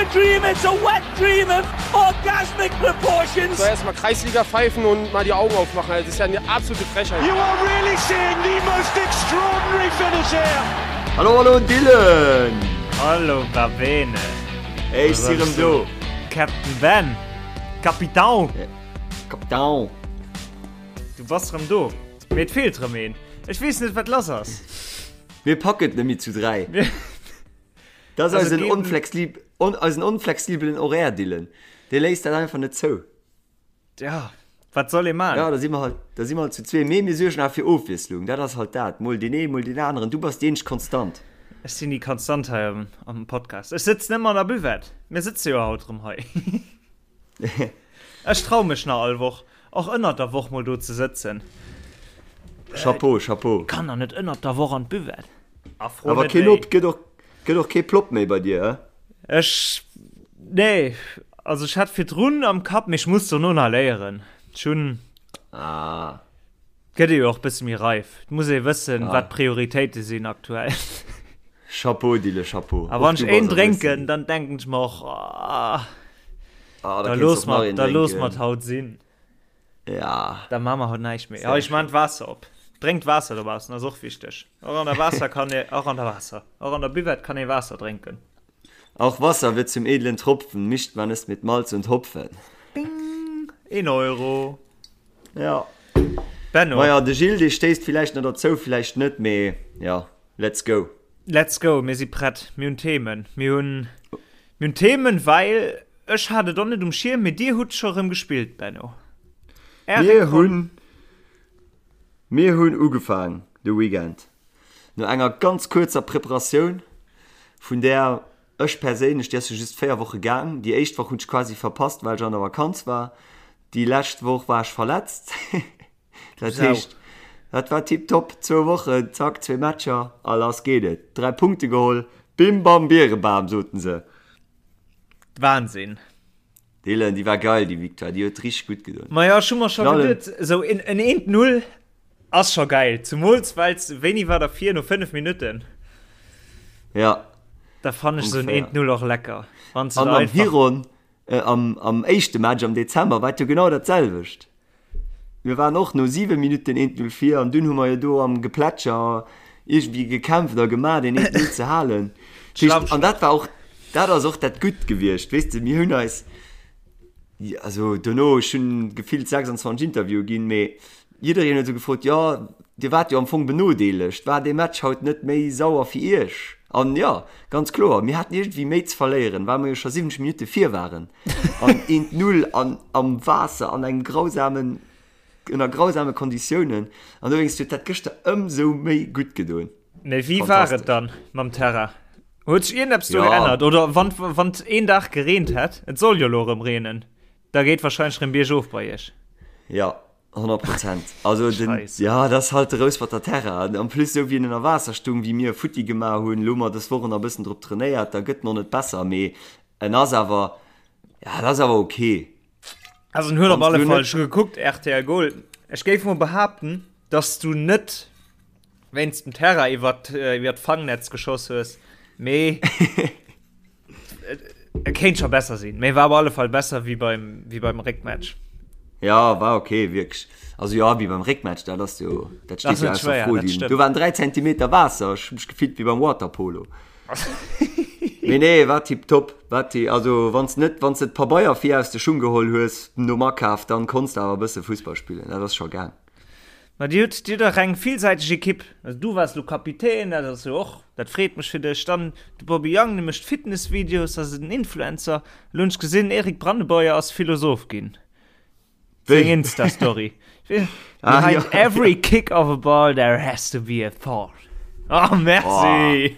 a dream, it's a wet dream of orgasmic proportions. So erstmal Kreisliga pfeifen und mal die Augen aufmachen. Das ist ja eine absolute Frechheit. You are really seeing the most extraordinary finish here. Hallo, hallo Dylan! Hallo Babene! Ey, ech si rëm do. Captain Ben! Capitão! Capitão! Du bass rëm do. Mee et feelt rëm een. Ech weess net, wat lass ass. Mir packen et net méi zu 3. Dat ass eisen onflexib on, eisen onflexibelen Horaire, Dylan. Dee léisst dat einfach net zou. Ja, wat soll ee man? Ja, da si mer halt, da si mer halt zu zwee. Mee mir suergen awer fir Ofwiesslung. Dat ass halt dat. Mol deen een, mol deen aneren. Du bass déi eenzeg Konstant. Ech sinn déi Konstant hei am, am Podcast. Ech sëtzen ëmmer an der Buvette. Mir sëtze jo haut erëm hei. Ech trau mech nach all Woch, och ënnert der Woch mol do ze sëtzen. Chapeau, chapeau. Kann der net ënnert der Woch an d'Buvette. A fro Awer net keen wéi. Op, gëtt och, gëtt och kee Plopp méi bei dir, hä? Ech, nee, also ech hat virdrun am Kapp, mee ech muss dono nach léieren. Ech hunn. Ah. Gëtt ee jo och bësse méi reif. Et muss ee wëssen, ah. wat d'Prioritéite sinn aktuell. Chapeau, Dille, Chapeau. A wann ech een drénken, dann denken ech mer och, ah, ah, da looss mer, da looss mer haut sinn. Ja. Da ma mer haut näischt méi. Ja, ech man d'Waasser op. Drénkt Waasser dobaussen, ass och wichteg. Och an der Waasser kann ee, och an der Waasser, och an der Buvette kann ee Waasser drénken. Auch Wasser wird zum edlen Tropfen, mischt man es mit Malz und Hopfen. Bing! Een Euro. Ja. Benno. Maja, de Gilles, dee stéisst villäicht nach derzou, villäicht net, mee ja, let's go. Let's go, mir si prett, mir hunn Themen. Mir hunn, mir hunn Themen, well ech hat et och net um Schierm, mee dir hutt scho rëm gespillt, Benno. Är Mir Réckronn. hunn, mir hunn ugefaang de Weekend no enger ganz kuerzer Preparatioun, vun där ech perséinlech, déi ass jo just 4 Woche gaang, déi éischt Woch hunn ech quasi verpasst, well ech an der Vakanz war, Déi lescht Woch war ech verletzt. Dat heescht, dat war tiptop. Zwou Wochen, zack, zwee Matcher a lass geet et. 3 Punkte geholl, bim bam Bierebam, soten se. Wahnsinn. Dylan, déi war geil, déi Victoire, déi huet richteg gutt gedoen. Majo, ech hu mer scho geduet, esou en eent Null ass scho geil, zemools wells, wéini war der vir, no 5 Minutten? Ja. Da fannen ech esou en eent Null och lecker, wann s de da einfach. An am Hiron Am éischte Match am Dezember war et jo genau dat selwecht. Mir waren och no 7 Minutten 1-0 vir an dunn hu mer jo do am Geplätscher iergendwéi gekämpft a gemaach deen 1-0 ze halen. An dat war och, dat ass och dat Gutt gewiescht, weess de, mir hunn eis, also dono, ech hunn gefillt 26 Interviewe ginn, mee Jiddereen huet esou gefrot, jo, Dir waart jo am Fong benodeelegt, war dee Match haut net méi sauer fir Iech? An jo, ganz kloer, mir haten iergendwéi méi ze verléieren, well mer jo scho 70 Minutte vir waren an eent Null an am Waasser an engem grausamen, ënner grausame Konditiounen. An dowéinst huet dat gëschter ëmsou méi gutt gedoen. Mee wéi war et dann mam Terrain? Huet sech iergendeppes do geännert? Oder wann, wann et een Dag gereent hätt, et soll jo elo erëm reenen, da geet warscheinlech erëm biergof bei Iech. Jo, 100 Prozent. Also den, ja, dat ass halt de Rousperter Terrain. En plus esou wéi en ënner Waasser stung, wéi mir futti gemaach hunn, elo hu mer dës Woch nach e bëssen drop trainéiert, da gëtt en och net besser, mee en ass awer, ja, dat ass awer ok. Also en huet op alle Fall, ech hu gekuckt, rtl Goal, ech géif mol behaapten, dass du net wéinst dem Terrain iwwer iwwer d'Fangnetz geschoss hues, mee Et kéint scho besser sinn, mee war op alle Fall besser wéi beim, wéi beim Réckmatch. Ja, war ok, wierklech. Also jo, wéi beim Réckmatch, dat ass jo, dat steet jo ausser Fro. Do waren 3 Zentimeter Waasser, ech hu mech gefillt wéi beim Waterpolo. Mee nee, war tiptop. War ti, also wann s net, wann s de d'Pabeier vir aus de Schung geholl hues nom Akaf, dann konns de awer e bësse Fussball spillen, dat ass scho gaang. Ma dir hutt, dir hutt dach eng villsäiteg Ekipp. Also du waars lo Kapitän, dat ass jo och, dat freet mech fir dech. Dann de Bobby Young, dee mécht Fitnessvideos, ass en Influencer. Elo hunn ech gesinn, Eric Brandeboyer ass Philosoph ginn. Seng Insta-Story. Behind every kick of a ball there has to be a thought. Oh, merci!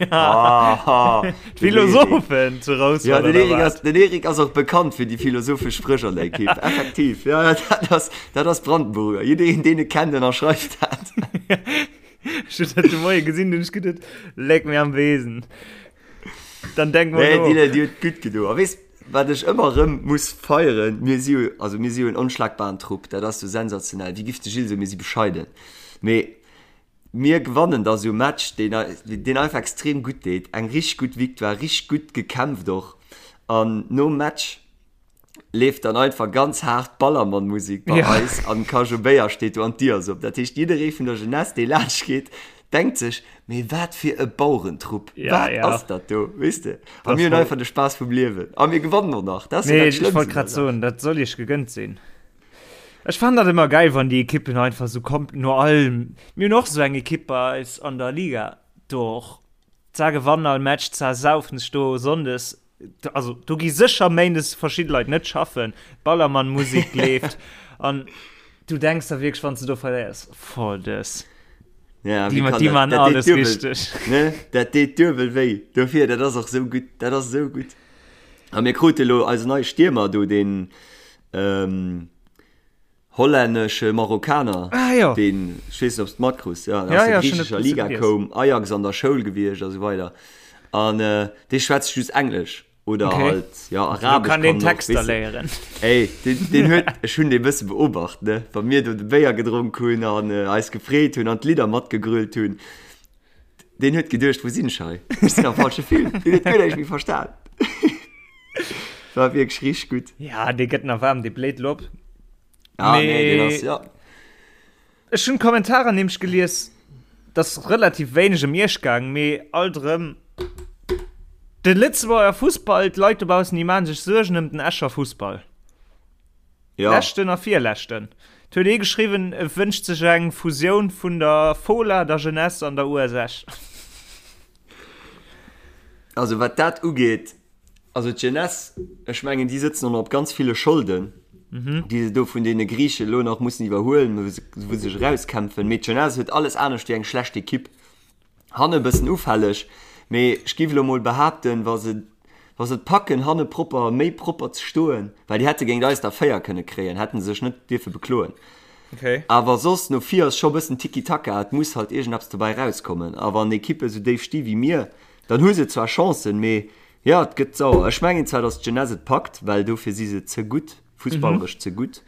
D'Philosophen zu Rouspert, Ja, den Eric ass, den Eric ass och bekannt fir déi philosophesch Spréch an der Ekipp. Effektiv, ja, ja, dat ass, dat ass Brandenburger. Jiddereen, deen e kennt, ënnerschreift dat. Ech hunn dat de Moie gesinn, hunn ech geduet, Leck mir am Besen. Dann denk mol Nee, no. déi, déi huet gutt gedo. A weess, wat ech ëmmer erëm muss feieren, mir si jo, also mir si jo en onschlagbaren Trupp, dat ass jo sensationell. Wéi giff de Gilles soen, mir si bescheiden. Mee Mir gewannen da sou Match deen deen einfach extrem gutt deet, eng richteg gutt Victoire, richteg gutt gekämpft och. An nom Match leeft dann einfach ganz haart Ballermann-Musik bei ja. eis an Kajo Béier steet do an d'Dier ass op. Dat heescht, jidderee vun der Jeunesse, dee laanscht geet, denkt sech, mee wat fir e Bauerentrupp, ja, wat ja. ass dat do, weess de? A mir hunn einfach de Spaass vum Liewen. A mir gewannen och nach. Dat ass nee, dat ech wollt grad soen, dat soll iech gegënnt sinn. Ech fannen dat ëmmer geil, wann déi Ekippen einfach sou kommt no allem. Mir hunn och sou eng Ekipp bei eis an der Liga do och. Zwar gewannen all Match, zwar saufen sech do Sonndes, also do gi sécher Méindes verschidde Leit net schaffen, Ballermann-Musik leeft an du denks der wierklech, wann s de do verléiers, voll dës. Ja, Déi, wie kann déi dat? man Dat deet alles duebel, richteg. ne? Dat deet duebel wéi. Dofir, dat ass och sou gutt, dat ass sou gutt. A mir krute lo eisen neie Stiermer do, deen, ähm, Hollännesche Marokkaner, ah, jo. deen, ech weess net, ob s de matkruss, ja, ja, aus der ja, griichescher Liga koum, Ajax an der Schoul gewiescht a sou weider. An äh, dee schwätzt just Englesch oder okay. halt ja, Arabesch. Kann den kann Text da léieren. Ey, den, den huet, ech hunn dee bësse beobacht, ne? Wa mir do de Béier gedronk hunn an äh, eis gefreet hunn an d'Lidder matgegrölt hunn. Deen huet geduecht, wou sinn ech hei? Ech sinn am falsche Film. Deen huet guer näischt méi verstan. War wierklech richteg gutt. Ja, dee gëtt nach waarm, dee bléit lo op. Ah, nee, deen ass, ja. Ech hunn d'Kommentarer nämlech gelies, et ass relativ wéineg ëm Iech gaang, mee alt erëm de Lëtzebuerger Fussball, d'Leit dobaussen, déi maache sech Suergen ëm den Escher Fussball. Ja. Leschten a virleschten. Et huet ee geschriwwen, e wënscht sech eng Fusioun vun der Fola, der Jeunesse an der US Esch. Also wat dat ugeet, also d'Jeunesse, ech mengen déi sëtzen och nach op ganz ville Scholden, déi se do vun deene Griiche elo nach mussen iwwerhuelen, wou se wou se sech erauskämpfen. Mee d'Jeunesse huet alles anescht wéi eng schlecht Ekipp. Hanne bëssen ufälleg, mee ech giff elo mol behaapten, wa se wa se et packen hanne propper, méi propper ze stoen, well déi hätte géint eis der 4 kënne kréien, hätten se sech net dierfe bekloen. Okay. Awer soss no vir ass scho bëssen Tiki-Taka, et muss halt iergendeppes dobäi rauskommen. A wann Ekippe sou déif sti wéi mir, dann hu se zwar Chancen, mee jo, et gëtt sauer. Ech mengen zwar, datt d'Jeunesse et packt, well dofir si se ze gutt, fussballeresch ze gutt.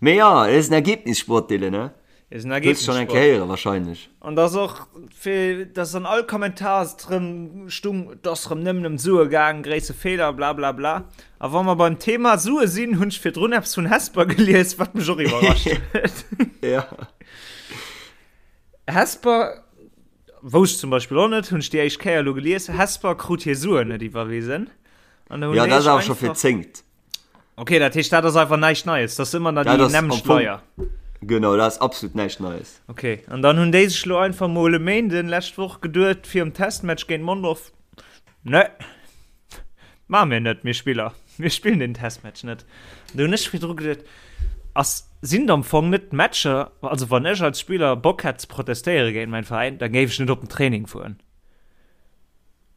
Mee jo, et ass en Ergebnissport, Dylan, ne? Ist ein Hues schon eng Kéier héieren wahrscheinlech. An dass och fir dass an all Kommentar et rëm stung, et ass rëm nëmmen ëm d'Sue gaang, gréisse Feeler, bla bla bla. A wa mer beim Thema Sue sinn, hunn ech virdrun eppes vun Hesper gelies, wat mech och iwwerrascht huet. Ja. Hesper, wousst ech zum Beispill och net, hunn ech déi éischt Kéier elo gelies, Hesper krut hir Suen net iwwerwisen. An da hunn Ja, dat déi ass awer scho fir einfach. d'zéngt. Ok, dat heescht dat ass einfach näischt Neies, dat ass ëmmer nach déi nämmlecht Leier. Genau, dat ass absolut näischt Neies. Ok, an dann hunn déi sech lo einfach mol e Méinden lescht Woch geduet virum Testmatch géint Mondorf, Ne, maache mir net, mir Spiller, mir spillen den Testmatch net. An do hunn ech virdru geduet, ass, sinn et am Fong net d'Matcher, also wann ech als Spiller Bock hätt ze protestéiere géint mäin Veräin, da géif ech net op den Training fueren.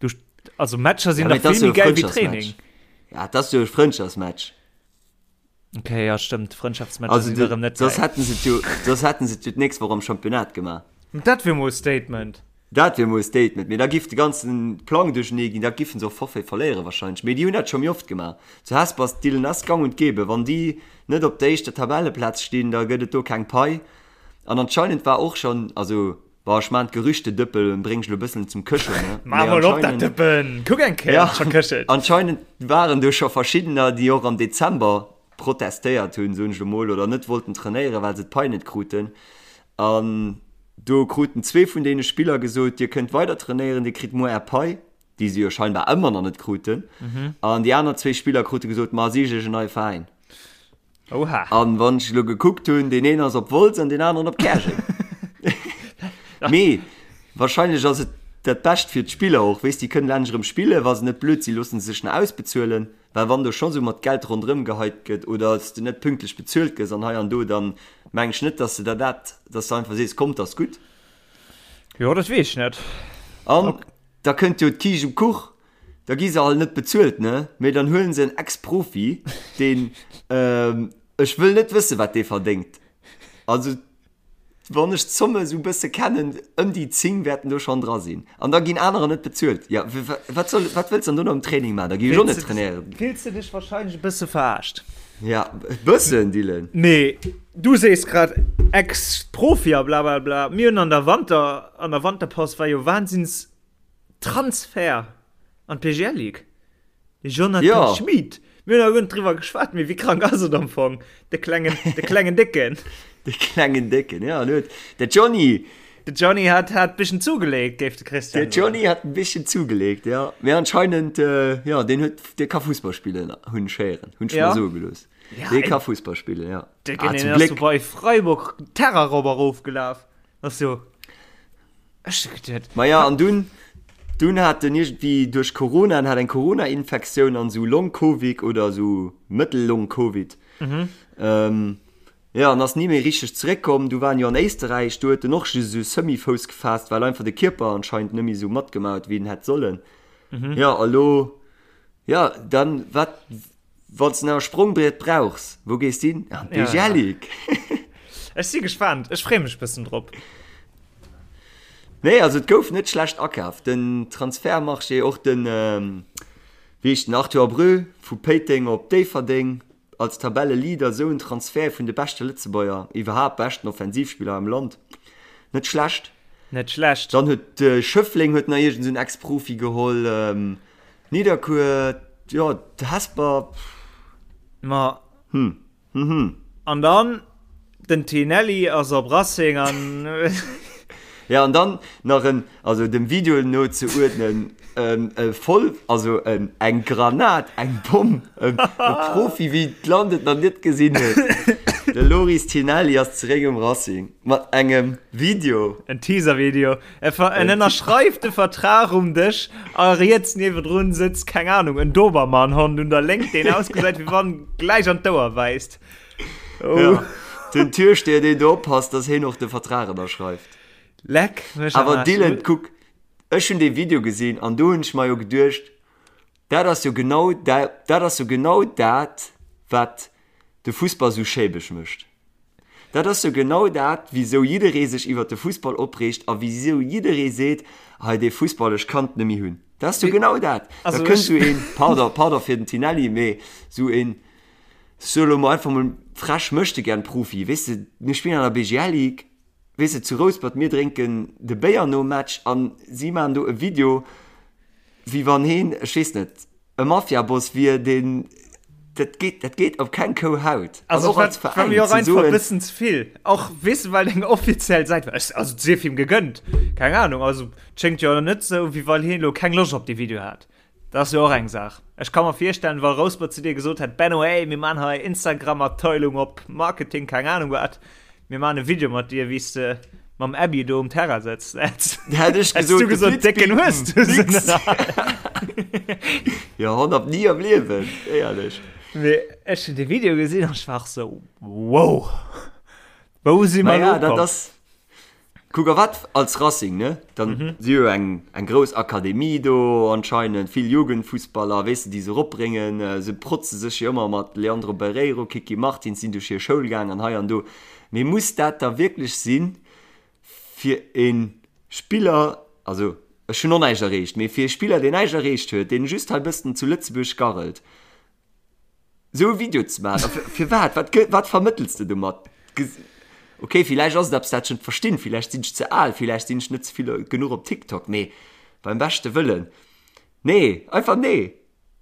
Du, also Matcher sinn Ja, dach mee vill dat ass méi jo e geil wéi Training. Frëndschaftsmatch. Ja, dat ass jo e Frëndschaftsmatch. Okay, ja stëmmt, Frëndschaftsmatcher Also sinn du, erëm net soss geil. hätten se et jo, soss hätten se et jo d'nächst Woch am Championnat gemaach. Dat wier mol e Statement. Dat wier mol e Statement, mee da giff de ganzen Plang duerchenee ginn, da giffen se och Forfait verléiere wahrscheinlech. Mee déi hunn dat scho méi oft gemaach. Zu Hesper ass d'Dillen ass gang und gäbe. Wann déi net op der éischter Tabelleplaz stinn, da gëtt et do keng Pai. An anscheinend war och schonn, also Bon, ech maan d'Gerüchtedëppel, bréng ech lo bëssen zum Këschen, ne? Maa mol op dat Dëppen! Kuck eng Kéier, Ja, ob et scho këschelt. anscheinend waren do scho verschiddener, déi och am Dezember protestéiert hunn, soen ech lo mol, oder net wollten trainéieren, well se d'Pai net kruten. An do kruten zwee vun deene Spiller gesot, Dir kënnt weider trainéieren, Dir kritt muer är Pai, déi se jo scheinbar ëmmer nach net kruten. An déi aner zwee Spiller krute gesot, Ma sicht iech en neie Veräin. Oha. An wann ech elo gekuckt hunn, deen een ass op Wolz an deen aneren op Käerjeng. Mee wahrscheinlech ass et dat Bescht fir d'Spiller och, weess, déi kënnen endlech erëm spillen, wa se net blöd sinn, loosse se sech nach ausbezuelen, well wann do scho sou mat Geld ronderëm geheit gëtt oder s de net pünktlech bezuelt gëss an hei an do, dann meng ech net, dass de der dat, dass de einfach sees, kommt, ass gutt. Jo, dat weess ech net. An da kënnt jo d'Kiischt um Kuch, Da gi se alt net bezuelt, ne? Mee dann huelen se en Ex-Profi, deen, ech wëll net wëssen, wat dee verdéngt. Also, wann ech d'Zomme esou e bësse kennen, ëm déi 10 wäerten do schonn dra sinn. An da ginn anerer net bezuelt. Jo, wat soll, wat wëlls de dann do nach um Training maachen? Da gi ech och net trainéieren. Fills de dech wahrscheinlech e bësse verarscht? Ja, e bëssen, Dylan. Mee du sees grad Ex-Profi a blablabla. Mir hunn an der Wanter, an der Wanterpaus war jo Wahnsinns. Transfer an d'PGL Ligue. De Jonathan Ja. Schmid. Mir hunn awer guer net driwwer geschwat, mee wéi krank ass et am Fong? De klengen, de klengen Décken. De klengen Décken, ja, en huet, de Johnny. De Johnny hat, hat bisschen zugelegt, géif de Christian De Johnny hat en bisschen zugelegt, ja. Mee anscheinend, äh, ja, deen huet, dee ka Fussball spillen, hunn ech héieren, hunn ech Ja. mer soe gelooss. Ja, Dee ey. ka Fussball spillen, ja. De Ah, ah, zum ass Gléck. so bei Freiburg Terra rop erofgelaf. Ass jo. Ech hu geduet. Ma ja, an dunn, dunn hat en iergendwéi duerch Corona, en hat eng Corona-Infektioun an esou Long-Covid oder esou Mëttel-Long-Covid. Mhm. Ähm, ja, an ass ni méi richteg zeréckkomm. Du war en jo an Éisterräich, do huet en och just esou semi-Fouss gefaasst, well einfach de Kierper anscheinend net méi esou matgemaach huet, wéi en hätt sollen. Mhm. Ja, a lo, ja, dann, wat, Wann s de nach e Sprongbriet brauchs, wou gees de hin? An Ja, ja. d'Bejalik! Ech si gespaant, ech freeë mech bëssen drop. Nee, also et gouf net schlecht akaf. Den Transfertmarché, och den, wéi heescht den, Arthur Abreu vu Péiteng op Déifferdeng als Tabelleleader, esou en Transfert vun de beschte Lëtzebuerger, iwwerhaapt beschten Offensivspiller am Land, net schlecht. Net schlecht. Dann huet Schëffleng huet nach iergend esou en Ex-Profi geholl. Nidderkuer, jo, Hesper, Ma. Hm, hm, hm. An dann den Tinelli ass op Racing an. Ja, an dann nach en, also dem Video no ze uerdnen, e voll, also en, eng Granat, eng Bomm, e Profi wéi d'Land et nach net gesinn huet. De Loris Tinelli ass zeréck um Racing mat engem Video. En Teaser-Video. En ënnerschreift de Vertrag um Dësch a riets niewedrun sëtzt, keng Ahnung, en Dobermannhond un der Léngt, deen ausgesäit, wéi wann gläich an d'Ouer wäisst. Oh. Ja, den Türsteher, deen do oppasst, dass heen och de Vertrag ënnerschreift. Leck mech am Awer Aarsch. Dylan, kuck, ech hunn dee Video gesinn an do hunn ech mer jo geduecht, dat ass jo genau dat, dat ass jo genau dat, wat de Fussball sou schäbeg mécht. Dat ass jo genau dat, wisou jidderee sech iwwert de Fussball opreegt a wisou jidderee seet, Hei dee Fussball, ech kann et net méi hunn. Dat ass jo genau dat. Da kënnt esou een, pardon, pardon fir den Tinelli, mee esou een, ech soe lo mol einfach mol frech, Möchtegern-Profi, weess de, mir spillen an der BGL Ligue, weess de, zu Rouspert, mir drénken de Béier nom Match a si maachen do e Video, wéi wann heen, ech weess net, e Mafiaboss wier, deen, dat geet, dat geet op keng Kou Haut. Also och als war mir och Veräin ze einfach e soen, bëssen ze vill. Och weess de, well eng offiziell Säit war. Ech, also et sief him gegënnt, keng Ahnung. Also et schéngt jo net esou, wéi well hien elo keng Loscht op dee Video hat. Dat ass jo och eng Saach. Ech ka mer virstellen, wa Rouspert zu dir gesot hätt, Benno, ey, mir man hei Instagram-Abteilung op Marketing, keng Ahnung wat, Mir maan e Video mat dir wéis de mam Abby do um Terrain sëtzt. Hätt ech Hättst du gesot, gesot, Décken hues du se Nix. net. Jo, 100 ni am Liewen, éierlech. Mee ech hunn de Video gesinn an ech war och sou, wow, wou si mer Naja, elo dat ukomm? ass. Kuck, a wat als Racing, ne? Dann si jo eng, eng grouss Akademie do anscheinend, vill Jugendfussballer, weess de, déi se eropbréngen. Se protze sech jo ëmmer mat Leandro Barreiro, Kiki Martins sinn duerch hir Schoul gaang an hei an do. Mee muss dat da wierklech sinn, fir e Spiller, also ech hunn och näischt erreecht, mee fir e Spiller, deen näischt erreecht huet, deen just hei bëssen zu Lëtzebuerg garrelt, Sou e Video ze maachen, a firwat? Wat gë-, wat vermëttels de domat? Ok, villäicht ass et eppes, dat ech net verstinn, villäicht sinn ech ze al, villäicht sinn ech net ze vill genuch op TikTok, mee beim beschte Wëllen, nee, einfach nee!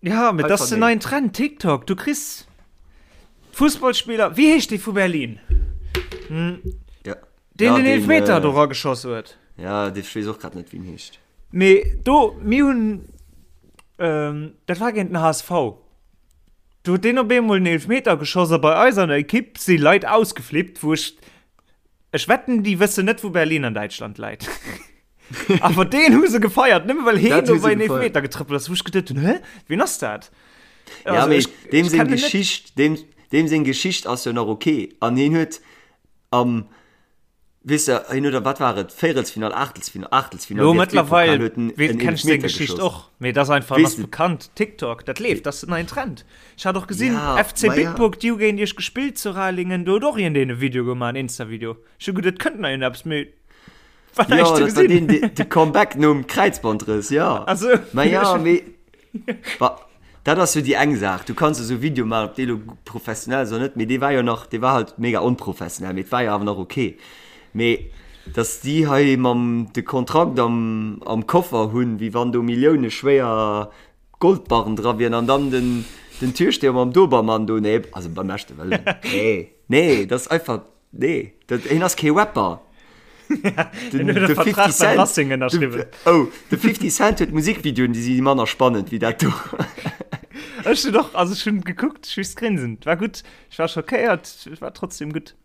Ja, mee dat ass den neien Trend, TikTok. Du kriss Fussballspiller, wéi heescht dee vu Berlin? Ja. Deen den Eelfmeter do rageschoss huet. Ja, dee, ech weess och grad net, wéi en heescht. Mee do, mir hunn, dat war géint den HSV, do huet deen op eemol en Eelfmeter geschoss a bei eis an der Ekipp si Leit ausgeflippt, wou ech, ech wetten, déi wëssen net, wou Berlin an Däitschland läit. Awer deen hu se gefeiert, nëmme well heen do bei en Eelfmeter getrëppelt ass, wou ech geduet hunn, hä, wien ass dat? Ja, mee deem seng Geschicht, deem, deem seng Geschicht ass jo nach ok an hien huet am Weess de, hien huet a wat war et, Véierelsfinall, Aachtelsfinall, Aachtelsfinall, Lo DFB-Pokal mëttlerweil huet en weess, en kenn ech seng Eelefmeter Geschicht geschoss. och, mee et ass einfach, Weess ass de, bekannt, TikTok, dat leeft, dat ass den neien Trend. Ech hat och gesinn, ja, FC ma ja. Bitburg, déi hu géint iech gespillt zu Ralingen, do huet och iergendeen e Video gemaach, en Insta-Video. Ech hu geduet, et kënnt nach iergendeppes, mee war Jo, näischt ze dat war gesinn. deen, de, de Comeback nom Kräizbandrëss, jo. Ach sou. Ma ja, mee Wa, dat ass jo déi eng Saach, du kanns esou Video maachen, ob dee lo professionell ass oder net, mee dee war jo nach, dee war halt mega onprofessionell, mee et war jo awer nach ok. Mee dass déi hei mam de Kontrakt am am Koffer hunn, wéi wann do Millioune schwéier. Goldbarren dra wieren an dann den, den Türsteher mam Dobermann do. Nee, also beim beschte Wëllen. Nee, nee, dat ass einfach, nee, dat, hien ass kee Rapper. Den, den 50 Cent, den, oh, de 50 Cent huet Musikvideoen, déi si manner spannend wéi dat do. Ech hunn och, also ech hunn gekuckt, ech just grinsen. War gutt, ech war schockéiert, war trotzdem gutt.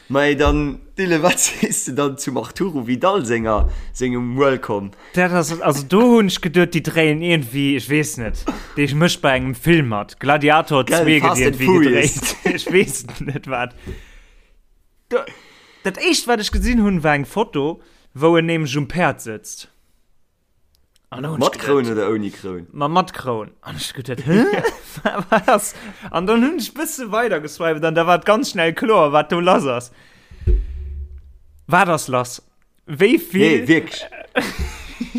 Mei dann Dylan, wat sees de dann zum Arturo Vidal senger sengem Welcome? Dat ass, also do hunn ech geduet, déi dréien iergendwéi, ech weess net, dee mécht bei engem Film mat, Gladiator 2 Gell, gëtt Fast and iergendwéi Furious. gedréit, ech weess net wat. Do, dat éischt wat ech gesinn hunn, war eng Foto, wou en nämlech um Päerd sëtzt. An da hunn ech Mat Kroun geduet, oder ouni Kroun? Ma mat Kroun. An ech geduet, hä? Wat ass? An dann hunn ech bësse weider geswiped an da war et ganz schnell kloer, wat do lass ass. Wat ass lass? Wéi vill? Nee, wierklech.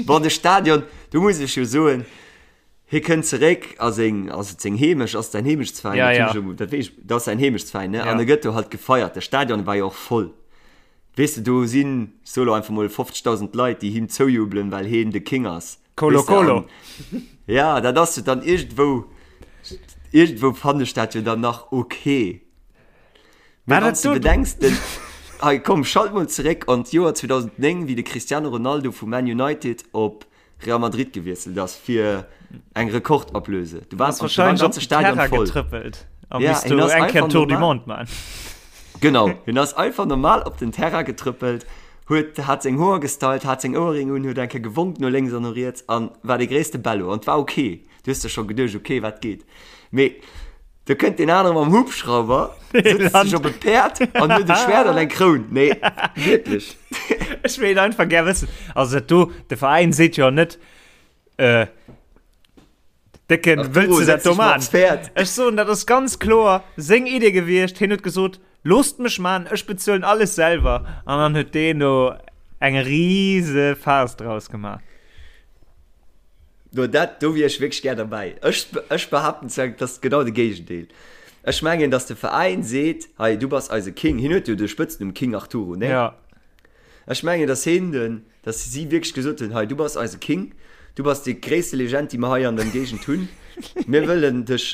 Bon, de Stadion, do muss ech jo soen, hie kënnt zeréck a seng, ass et seng Heemecht, ass et säin Heemechtsveräin? Ja, Dat ja. hunn ech elo, dat weess ech, dat ass säin Heemechtsveräin, ne? Ja. An e gëtt do halt gefeiert. De Stadion war jo och voll. Weess de, do sinn, ech soe lo einfach mol, 50.000 Leit, déi him zoujubelen, well heen de King ass. Colo Weess de, Colo. an ja, dat ass jo dann iergendwou, iergendwou fannen ech dat jo dann nach ok. Mee War wann dat s de do? bedenks, den, hei komm, schalt mol zeréck an d'Joer 2009, wéi de Cristiano Ronaldo vu Man United op Real Madrid gewiesselt ass fir eng Rekordablöse. Du Ass war, du war wahrscheinlech op ganze den Stadion Terrain voll. getrëppelt a Ja, misst hien do ass eng Kéier einfach Tour du normal. Monde man. Genau, hien ass einfach normal op den Terrain getrëppelt, huet, hat seng Hoer gestylt, hat seng Ouerring un, huet eng Kéier gewonk no lénks an no riets an war de gréisste Bello. An et war ok. Du hues der scho geduecht, ok, wat geet? Mee do kënnt deen anere mam Hubschrauber, sëtzt sech op e Päerd an huet e Schwert an eng Kroun. Nee, wierklech. Ech wéilt einfach gär wëssen, also dat do, de Veräin seet jo net, äh, Décken, Arturo, wëlls du dat setz do dech mal man? op's Päerd. Ech soen, dat ass ganz kloer seng Idee gewiescht. Hien huet gesot, loosst mech man, ech bezuelen alles selwer. An dann huet deen do eng rise Farce draus gemaach. No dat, do wier ech wierklech gär derbäi. Ech, ech behaapten zwar, et ass genau de Géigendeel. Ech mengen, datt de Veräin seet, hei, du bass eise King. Hien huet jo de Spëtznumm King Arturo, nee? Ja. Ech mengen, datt hien den, datt si wierklech gesot hunn, hei, du bass eise King, du bass déi gréisste Legend, déi mer hei an der Géigend hunn. Mir wëllen dech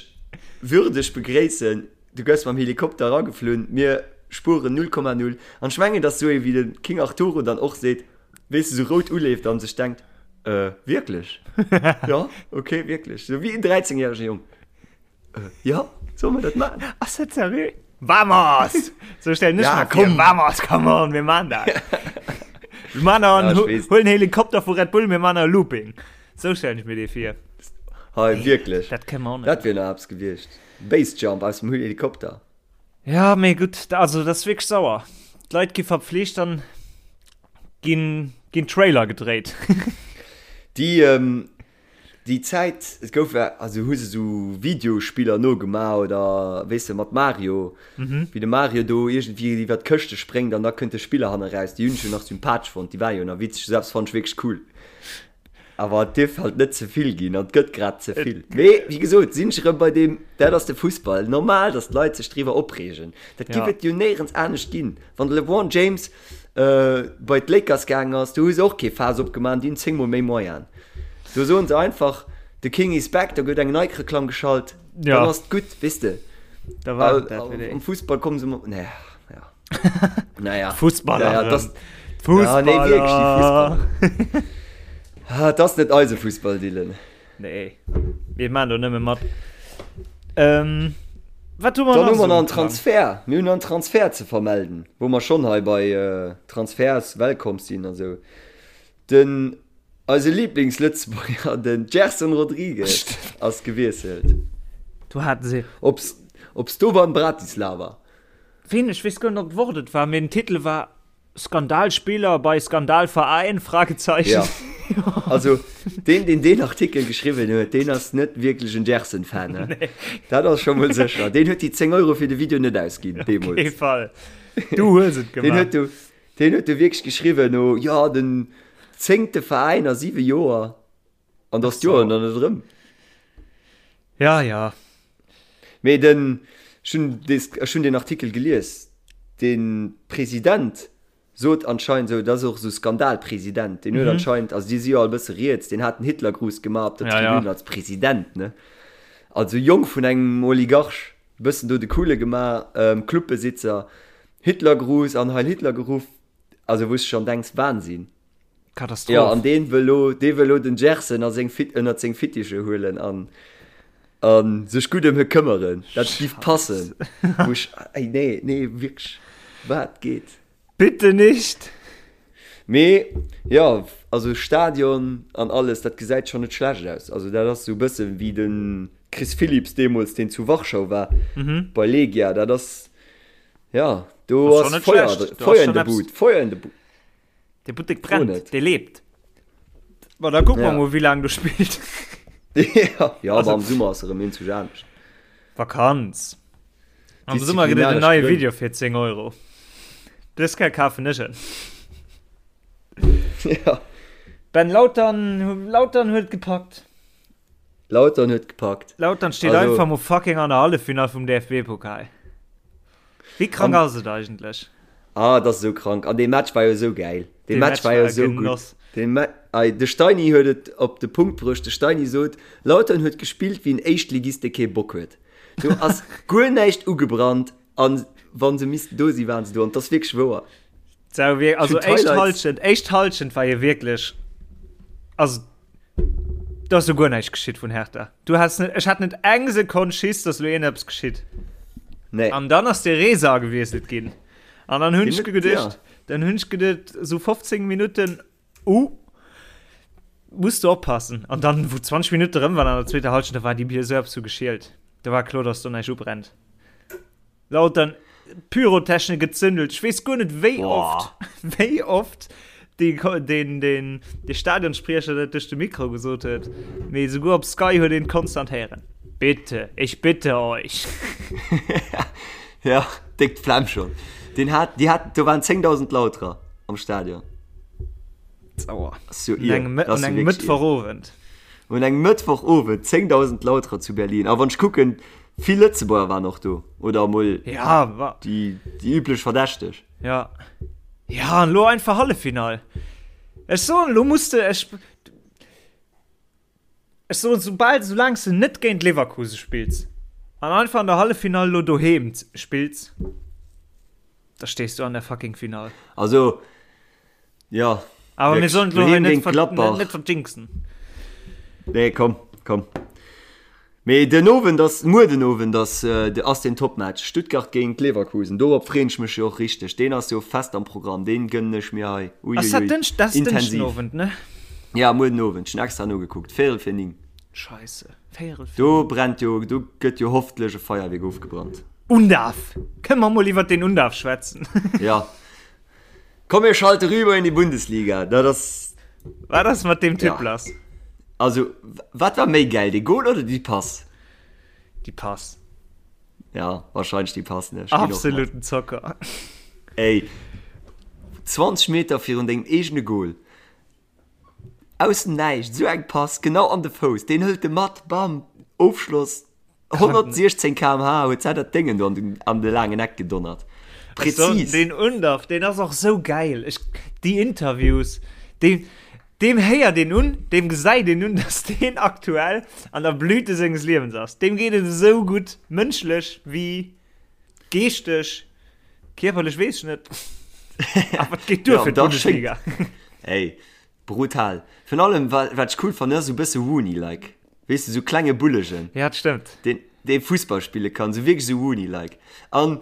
würdeg begréissen. Du gëss mam Helikopter erageflunn, mir spueren 0,0. An ech mengen, datt esou ee wéi de King Arturo dann och seet, weess de, sou rout uleeft an sech denkt, Äh, wierklech? Ja, okay, wierklech. Sou wéi en 13 järege Jong. Äh, ja, solle mer dat maachen? Ass dat seriö? Vamos! Sou stellen ech Ja, mer vir. komm. Vamos, come on, mir maan dat. Mir maan nach Ja, en, ech weess. huelen Helikopter vu Red Bull, mir maan nach e Looping. Sou stellen ech mir dee vir. Hei, wierklech. Dat kënne mer och net. Dat wier nach eppes gewiescht. Basejump aus dem Helikopter. Ja, mee gutt, also dat ass wierklech sauer. D'Leit gi verpflicht an ginn ginn Trailer gedréit. Déi ähm, déi Zäit, et gouf ja, also hu se sou Videospiller nogemaach oder weess de mat Mario, mhm. wéi de Mario do iergendwéi iwwer d'Këschte spréngt an da kënnt de Spiller hanne raus. Déi hunn ech jo nach sympathesch fonnt, déi war jo nach witzeg, selbst fand ech wierklech cool. Awer et dierf halt net ze vill ginn an et gëtt grad ze vill. Mee wéi gesot sinn ech erëm bei deem, dat ass de Fussball. Normal, datt d'Leit sech driwwer opreegen. Dat giff et jo néierens anescht ginn. Wann de LeBron James bei d'Lakers gaangen ass, do hu se och kee Faass opgemaach, déi hunn 10 mol méi Moyenen. Do soen se einfach, the King is back, da gëtt eng Nike-Reklamm geschalt, dann ass et gutt, weess de. Da war et dat fir déi. Am Fussball komme se mat, nee, ja. Naja. Fussballer. Ja, das, Fussballer. Ja, nee, wierklech, déi Fussballer. Ah, das ass net eise Fussball, Dylan. Nee, mir maan do nëmme mat. Ähm, wat hu mer Dann nach hu mer so nach en um Plang? Transfer. Mir hunn nach en Transfer ze vermelden, wou mer schonn hei bei äh, Transfers Welcome sinn an esou. Den eise Lieblingslëtzebuerger, den Gerson Rodrigues, ass gewiesselt. Do haten se. Op, op Slovan Bratislava. Ween, ech weess guer net, ob d'Wort et war, mee den Titel war Skandalspieler bei Skandalverein? Fragezeichen. Ja. Also deen, deen deen Artikel geschriwwen huet, deen ass net wierklech en Gerson-Fan. Ne? Nee. Dat ass scho mol sécher. Deen huet déi 10 Euro fir de Video net ausginn, Op kee deemools. Fall. Du hues et Deen gemaach. huet do, deen huet do wierklech geschriwwen, no, jo, den zéngte Veräin a siwe Joer. An dass d'Joer nach net erëm. Ja, ja. Mee den, ech hunn des, ech hunn den Artikel gelies, de President. Sot anscheinend esou, dat ass och esou Skandalpresident, deen huet anscheinend, also déi si jo all e bësse riets, deen hat den Hitlergruß gemaach op der Ja, ja. Tribün als President, ne? Also Jong vun engem Oligarch, e bëssen do de Coole gemaach, Clubbesitzer, Hitlergruß an Heil Hitler geruff, also wou s de schonn denks, Wahnsinn. Katastroph. Jo, an deen wëll lo, dee wëll lo den Gerson a seng Fit, ënnert seng Fittiche huelen an, a sech gutt ëm hie këmmeren. Dat giff passen. Wou ech, ey, nee, nee, wierklech, wat geet? Bitte nicht! Mee, jo, also Stadion an alles, dat gesäit schonn net schlecht aus. Also dat ass esou e bësse wéi de Chris Philipps deemools, deen zu Warschau war, bei Legia. Dat ass, jo, do Ass schonn ass net Feuer, schlecht. Do ass Feuer in schonn der eppes. Bud, Feuer in der Bud. De Buttek Fro brennt, net. dee lebt. Ma da kucke mer Ja. mol, wéi laang do spillt. Ja, ja, Also- aber am Summer ass erëm een zu anescht. Vakanz. Am Summer gëtt et en Disziplinaresch neie Grënn. Video fir 10 Euro. Dës Kéier kafen ech en. Ja. Ben Lautern, Lautern huet gepackt. Lautern huet gepackt. Lautern steet Also- einfach mol fucking an der Halleffinall vum DFB-Pokal. Wéi krank ass et eigentlech? Ah, dat ass esou krank. An dee Match war jo esou gäil. Dee Dee Match Match war jo war e esou gutt. Genoss. Dee Ma ei, de Steini huet et op de Punkt bruecht. De Steini sot, Lautern huet gespillt wéi en Éischtligist, dee kee Bock huet. Do ass guer näischt ugebrannt an wa se missten do sinn, waren se do. An 't ass wierklech wouer. Sau wir, also Ech hunn éischt d'Highlights. Halschent, éischt Halschent war jo wierklech, also do ass jo guer näischt geschitt vun Hertha. Du has net, ech hat net eng Sekonn Schiss, dass lo iergendeppes geschitt. Nee. An dann ass de Resa agewiesselt ginn. An dann hunn ech Den huet- geduecht, ja. dann hunn ech geduecht, so 15 Minutten, uh, muss du oppassen. An dann, wou 20 Minutte rëm waren an der zweeter Halschent, da war déi Bier sou eppes vu geschielt. Da war kloer, dass do näischt ubrennt. Lautern Pyrotechnik gezündelt. Ech weess guer net wéi oft, wéi oft dee, deen, deen, dee Stadionspriecher dat duerch de Mikro gesot huet. Mee souguer op Sky huet een et konstant héieren. Bitte, ich bitte euch. Ja, déck d'Flemm schonn. Deen hat, déi hat, do waren 10.000 Lauterer am Stadion. Sauer. Ass jo Un ier. engem, Dat ass un jo engem wierklech ier. Mëttwochowend. Un engem Mëttwochowend 10.000 Lauterer zu Berlin. A wann ech kucken, Vill Lëtzebuerger waren och do, oder emol ja, déi, déi üblech Verdächteg. Ja. Ja, an lo einfach Halleffinall. Ech soen, lo muss de, ech, ech soen, soubal, soulaang s de net géint Leverkusen spills an einfach an der Halleffinall lo doheem spills, da stees du an der fucking Finall. Also, ja. Awer mir sollen lo hei net, ver net verjinxen. Nee, komm, komm. Mee den Owend ass, muer den Owend ass, ass den Topmatch, Stuttgart géint Leverkusen. Dorop freeën ech mech jo och richteg. Deen ass jo fest am Programm, deen gënnen ech mir hei. Uiuiui, Ass dat Dënsch, dat ass Dënschden intensiv. Owend, ne? Ja, muer den Owend. Ech hunn extra nogekuckt, Véierel fir 9. Scheisse, Véierel fir Do 9. brennt jo, do gëtt jo hoffentlech e Feierwierk ofgebrannt. Undav! Kënne mer mol iwwert den Undav schwätzen? Ja. Komm mir schalte rüber in die Bundesliga. Dat ass. Wat ass mat deem Typ Ja. lass? Also, wat war méi gäil, de Goal oder déi Pass? Déi Pass. Ja, wahrscheinlech déi Pass, ne? Ech ginn och mat. Absoluten Zocker. Ey, 20 Meter virun dengem eegene Goal, aus dem Näischt, esou eng Pass, genau an de Fouss, deen hëlt e mat, bam, Ofschloss. 116 km/h huet se dat Déngen do an den, an de laangen Eck gedonnert. Präzis. Den Undav, deen ass och sou gäil. Ech, déi Interviews, deen, deem héiert een un, deem gesäit een un, dass deen aktuell an der Blüte senges Liewens ass. Deem geet et esou gutt, mënschlech wéi geeschteg, kierperlech weess ech net. Awer et geet duer Ja, fir da schéngt. d'Bundesliga. Ey, brutal. Virun allem, wa, wat ech cool fannen, ass esou e bësse Rooney-like. Weess de, sou klenge Bullegen. Ja, dat stëmmt. Deen, dee Fussball spille kann, sou wierklech sou Rooney-like. An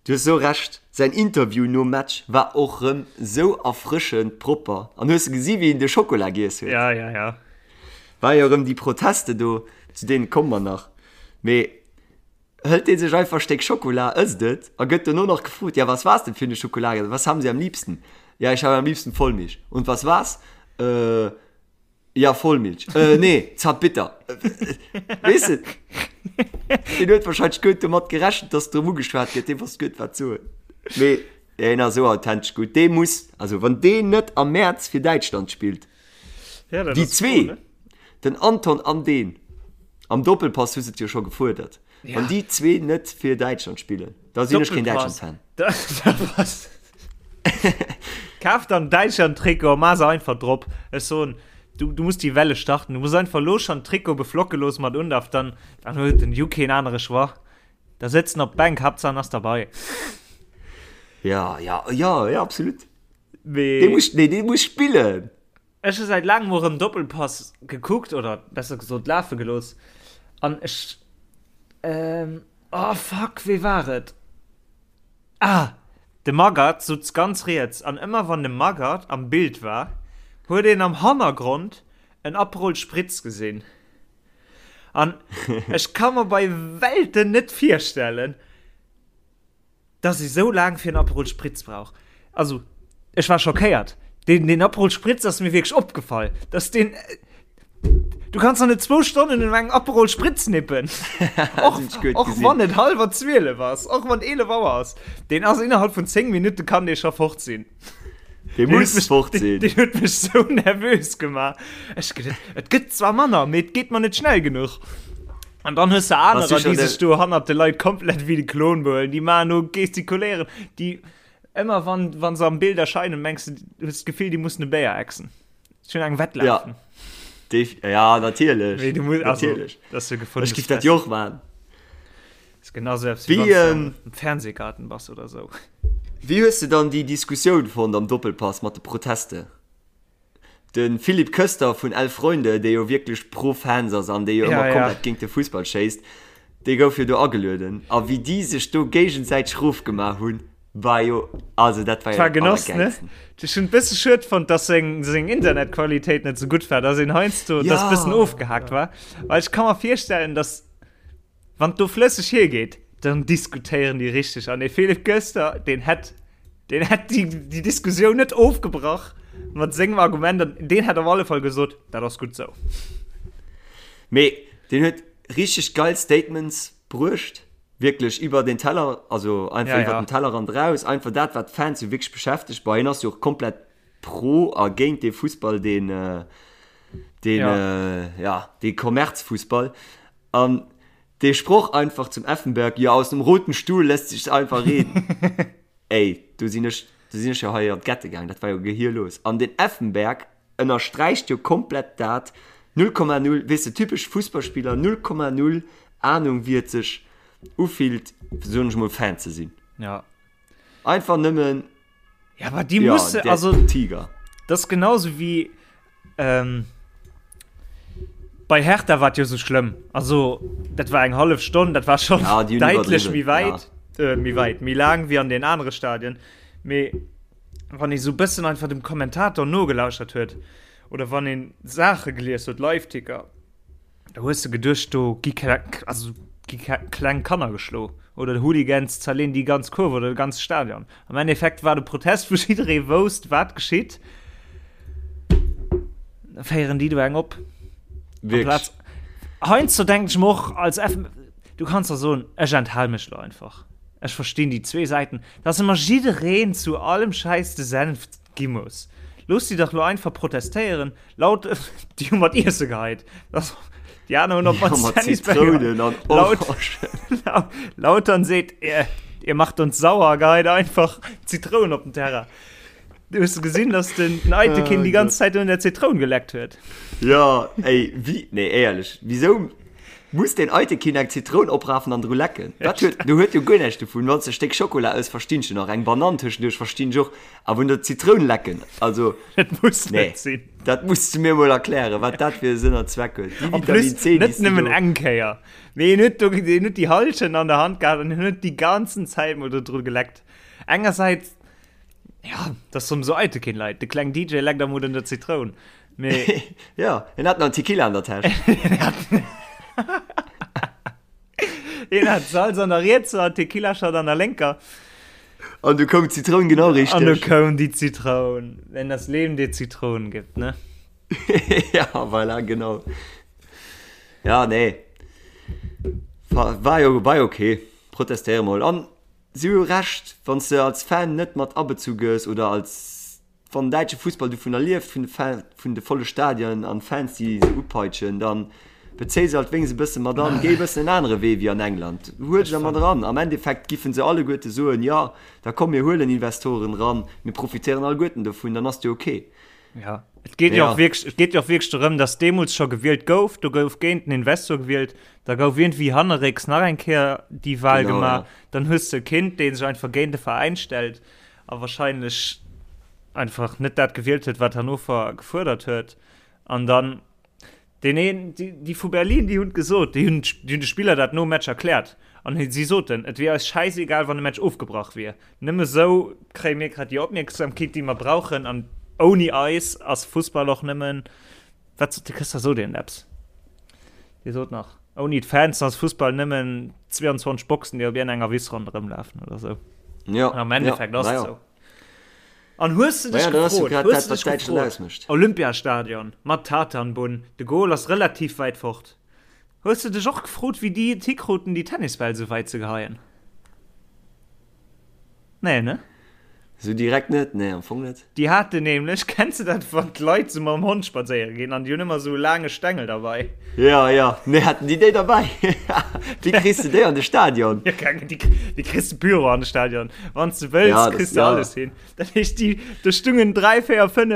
du hues sou Recht, säin Interview nom Match war och rëm sou erfrëschend propper. An hues de gesi wéi en de Schokola giess huet? Ja, ja, ja. War jo rëm déi Proteste do, zu deene komme mer nach. Mee hëlt dee sech einfach e Stéck Schokola, ësst et a gëtt dono nach gefrot, Ja, was war's denn für eine Schokolade? Was haben Sie am liebsten? Ja, ich habe am liebsten Vollmilch. Und was war's? Äh. Ja, Vollmilch. Äh, nee, Zartbitter. Weess de, deen huet wahrscheinlech guer net domat gerechent, dass drëm ugeschwat gëtt. Dee wosst guer net, wat soen. Mee deen ass esou authentesch gutt. Dee muss, also wann deen net am Mäerz fir Däitschland spillt, Ja, dat déi ass zwee, cool, ne? den Anton an deen, am Doppelpass hu se et jo scho gefuerdert, Ja. wann déi zwee net fir Däitschland spillen, da sinn ech keen Doppelpass. Däitschland-Fan. Da, da pass. Kaf dann Däitschland-Trikot a maach se einfach drop. Ech soen, du, du muss déi Welle starten. Du muss einfach elo schonn d'Trikot beflocke loosse mat Undav, dann, dann huet den Ju keen anere Choix. Da sëtzt en op d'Bänk, Haaptsaach en ass derbei. Ja, ja, ja, ja, absolut. Mee. Dee muss, nee, dee muss spillen. Ech hu säit laangem och erëm Doppelpass gekuckt, oder besser gesot lafe gelooss, an ech, ähm, oh fuck, wee war et? Ah, de Magath sutz ganz riets, an ëmmer wann de Magath am Bild war, huet een am Hannergrond en Aperol Spritz gesinn. An ech ka mer bei Welten net virstellen, Dass ee sou laang fir en Aperol Spritz brauch. Also, ech war schockéiert. Deen, deen Aperol Spritz ass mir wierklech opgefall. Dass deen. Du kanns doch net zwou Stonnen un engem Aperol Spritz nippen. Och, och wann et hallwer 12 ass, och wann 11 Auer ass. Deen ass innerhalb vun 10 Minutte kann dee scho fort sinn. Dee muss fort sinn. Deen huet mech sou nervös gemaach. Ech geduet, et gëtt zwar manner, mee et geet mer net schnell genuch. An dann hues de anerer, déi sech do hannert de Leit komplett wéi de Klon behuelen. Déi maachen do gestikuléieren, déi ëmmer wann, wann se am Bild erscheinen, mengs du, hues d'Gefill, déi mussen e Béier exen. Ech hunn eng Wett lafen. Ja, ja natierlech. Mee du muss, also, natierlech. Das ist jo gefundenes Ech giff dat jo och maachen. Ist genauso eppes wéi wann du am Fernsehgarten bass oder sou. Wéi hues de dann déi Diskussioun fonnt am Doppelpass mat de Proteste? De Philippe Köster vun Elf Freunde, dee jo wierklech pro Fans ass an dee jo ëmmer komplett géint de Fussball schéisst, dee gouf jo do agelueden. A wéi déi sech do géigesäiteg rofgemaach hunn, war jo, also dat war jo dat Genoss, ne? Ech hunn et bësse schued fonnt, dass seng, seng Internetqualitéit net sou gutt war, dass een heiansdo, dass bëssen ofgehaakt war. Well ech ka mer virstellen, dass Wann et do flësseg hiergeet, dann diskutéieren déi richteg. An dee Philippe Köster, deen hätt, deen hätt déi, déi Diskussioun net ofgebrach mat sengem Argument. An deen hätt op alle Fall gesot, dat ass gutt sou. Mee deen huet richteg geil Statements bruecht, wierklech iwwer den Teller, also einfach ja, iwwer ja. den Tellerrand raus, einfach dat, wat d'Fans jo wierklech beschäftegt. Bei hien ass jo och komplett pro a géint dee Fussball, deen, deen, ja. Äh, ja, dee Kommerzfussball. An dee Sproch einfach zum Effenberg, ja aus dem roten Stuhl lässt sich einfach reden. Ey, do sinn ech, do sinn ech jo hei an d'Gette gaang, dat war jo gehirlos. An den Effenberg ënnersträicht jo komplett dat, 0,0, weess de, typesch Fussballspiller, 0,0 Ahnung wéi et sech ufillt, soen ech mol, Fan ze sinn. Ja. Einfach nëmmen. Ja, aber die ja, musse, also Tiger. Das ist genauso wie ähm, bei Hertha war jo so schlimm. Also dat war eng half Stonn, dat war schon ja, die deutlich mi weit ja. äh, mi weit mi lang wie an den anderen Stadien. Me wann ich so bëssen einfach dem Kommentator nogelauschert huet oder wann een Sache gelies huet Live-Ticker Da hues de geduecht, do gi also gi kleng Kanner geschlo oder de Hooligans zerleen déi ganz Kurve oder de ganze Stadion. Am Endeffekt war de Protest, wou jidderee wousst, wat geschitt. Da féieren déi do eng op. Wierklech. Heiansdo denken ech mer och als F, du kanns da soen, ech enthal mech lo einfach. Ech verstinn déi zwee Säiten, dass ëmmer jiddereen zu allem Schäiss de Senf gi muss. Looss déi dach lo einfach protestéieren. Laut, déi hu mat Iesse geheit. Das, déi aner hunn op Ja, mat Zitrounen an Laut, Orangen. Lautern seet, ihr, ihr macht uns sauer, geheit einfach Zitroun op den Terrain. Du hues gesinn, dass den, den Aytekin oh, die ganze Zeit un der Zitroun geleckt huet. Ja, ey, wie, nee, éierlech, wieso muss den Aytekin eng Zitroun oprafen an dru lecken? Dat huet, du huet jo guer näischt dovun. Wann s de e Stéck Schokola ëss, verstinn ech nach, eng Banann tëschenduerch verstinn ech och, awer un der Zitroun lecken, also. Dat muss nee, net sinn. Dat muss du mir mol erklären, wat dat fir e Sënn an Zweck huet. Déi Vitamin C, net nëmmen eng Kéier. Mee en huet do, en huet déi Halschen an der Hand gehat an en huet déi ganzen Zäit mol do dru geleckt. Engersäits, ja, dat ass sou Eitekin Leit. De kleng DJ leckt am un der Zitroun. Mee. Ja, en hat nach en Tequila an der Täsch. Een hat Salz an der rietser an Tequila-Shot an der lénker. An du koum d'Zitroun genau richteg. An du koum déi Zitroun. Wenn das Leben dir Zitronen gibt, ne? ja, voilà, genau. Ja, nee. War, war jo, war jo okay. Protestéiere mol. An si hu Recht, wann s de als Fan net mat abezu gëss oder als Wann den däitsche Fussball dovunner lieft, vun de Fan, vun de volle Stadionen an Fans, déi se upeitschen, dann. Bezéi se alt wéinst e bësse mat an, géi e bëssen en anere Wee wéi an England. Huel se mat eran. Am Endeffekt giffen se alleguerte soen, jo, da komm mir huelen Investoren eran, mir profitéieren alleguerten dovun, dann ass et jo ok. Ja, et geet jo och wierklech, et geet jo och wierklech dorëm, datt deemools scho gewielt gouf, do gouf géint den Investor gewielt, da gouf iergendwéi hannerrécks nach eng Kéier déi Wahl Genau, gemaach, ja. dann hues de e Kind, dee sech einfach géint de Veräin stellt a wahrscheinlech einfach net dat gewielt huet, wat Hannover gefuerdert huet. An dann Deen een, déi, déi vu Berlin, déi hunn et gesot, déi hunn, déi hunn de Spiller dat nom Match erkläert. An si soten, et wier eis schäisegal, wann de Match ofgebrach wier. Nëmme sou kréie mir grad déi Opmierksamkeet, déi mer brauchen. An ouni eis ass Fussball och nëmmen, wat sot de Këster, sot een eppes? Dee sot nach, ouni d'Fans ass Fussball nëmmen 22 Boxen, déi op iergendenger Wiss ronderëm lafen oder sou. Ja, An am ja, Endeffekt ass na et ja. sou. An hues de dech Naja, dat ass jo gefrot, grad hues dat, de wat dech Däitschland gefrot, ausmécht. Olympiastadion mat Tartanbunn, de Goal ass relativ wäit fort. Hues de dech och gefrot, wéi déi et hikruten, déi Tennisbäll sou wäit ze geheien? Nee, ne? Sou direkt net, nee, am Fong net. Déi haten nämlech, kenns de dat, wann d'Leit sou mam Hond spadséiere ginn an déi hunn ëmmer sou e laange Stengel derbei? Ja, ja, nee, haten déi déi derbäi? Wéi kriss de déi an de Stadion? Ja, keng, déi, déi kriss de Büro an de Stadion. Wann s de wëlls, Ja, das, kriss de ja. alles hin. Dat heescht, déi, do stungen 3, 4, 5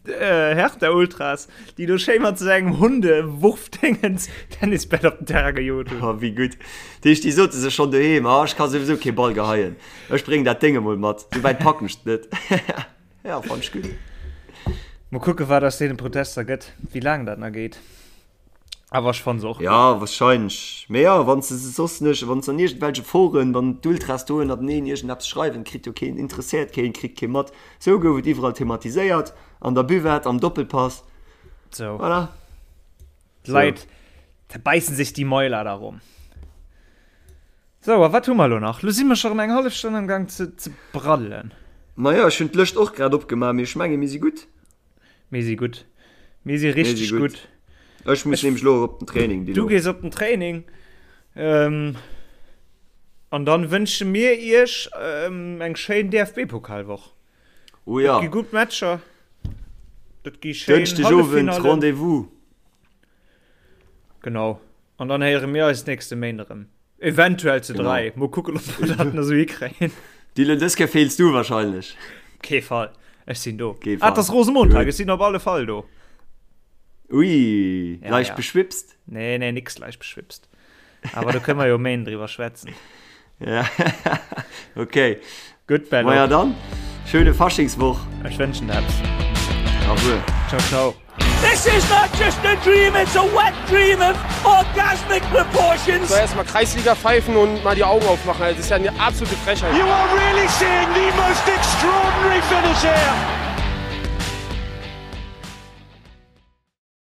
äh, Hertha-Ultras, déi do schéi mat sou engem Hundewurfdingens Tennisbäll op den Terrain gejot hunn. Oh, wéi gutt. Dat heescht, déi sote sech schonn doheem, ah, ech ka souwisou kee Ball geheien. Ech bréngen dat Déng emol mat, sou wäit packen ech et net. Ja, fand ech gutt. Mol kucken, wat aus deene Protester gëtt, wéi laang dat nach geet. Awer ech fanne se och gutt. Ja, wahrscheinlech. Mee ja, wann se se soss nech, wann se an iergendwelche Foren, wann d'Ultras do ënnerteneen iergendeppes schreiwen, kritt jo keen, interesséiert keen, kritt kee mat. Sou gouf et iwwerall thematiséiert, an der Buvette, am Doppelpass. Sou. Voilà. D'Leit zerbäissen sech déi Mäuler darum. Sou, a wat hu mer elo nach? Lo si mer scho rëm eng hallef Stonn am Gang ze, ze braddelen. Majo, ech hunn d'Lëscht och grad opgemaach, mee ech menge mir si gutt. Mir si gutt. Mir si Mir si richteg gutt. gutt. Ech muss Ech, nämlech elo och op den Training, du Dilo. gees op den Training. Ähm, an dann wënsche mir iech ähm, eng schéin DFB-Pokalwoch. Oh Et ja. gi gutt Matcher. Dat gi schéin Dënschdegowend Halleffinallen. Rendez-vous. Genau. An dann héiere mir eis nächste Méint erëm. Eventuell zu Genau. 3. Mol kucken, ob mer dat nach esou hikréien. Dylan, dës Kéier feels du wahrscheinlech. Kee Fall. Ech sinn do. Kee Ah, et Fall. ass Rosemontag. Gutt. Ech sinn op alle Fall do. Ui, Ja, leicht ja. beschwipst? Nee, nee, nix leicht beschwipst. Awer do kënne mer jo Méint driwwer schwätzen. Ja, okay. Gutt, Bello. Maja dann, schöne Faschingswoch. Ech wënschen der eppes. Au revoir. Ciao, ciao. This is not just a dream, it's a wet dream of orgasmic proportions. So erstmal Kreisliga pfeifen und mal die Augen aufmachen. Also, das ist ja eine absolute Frechheit. You are really seeing the most extraordinary finish here.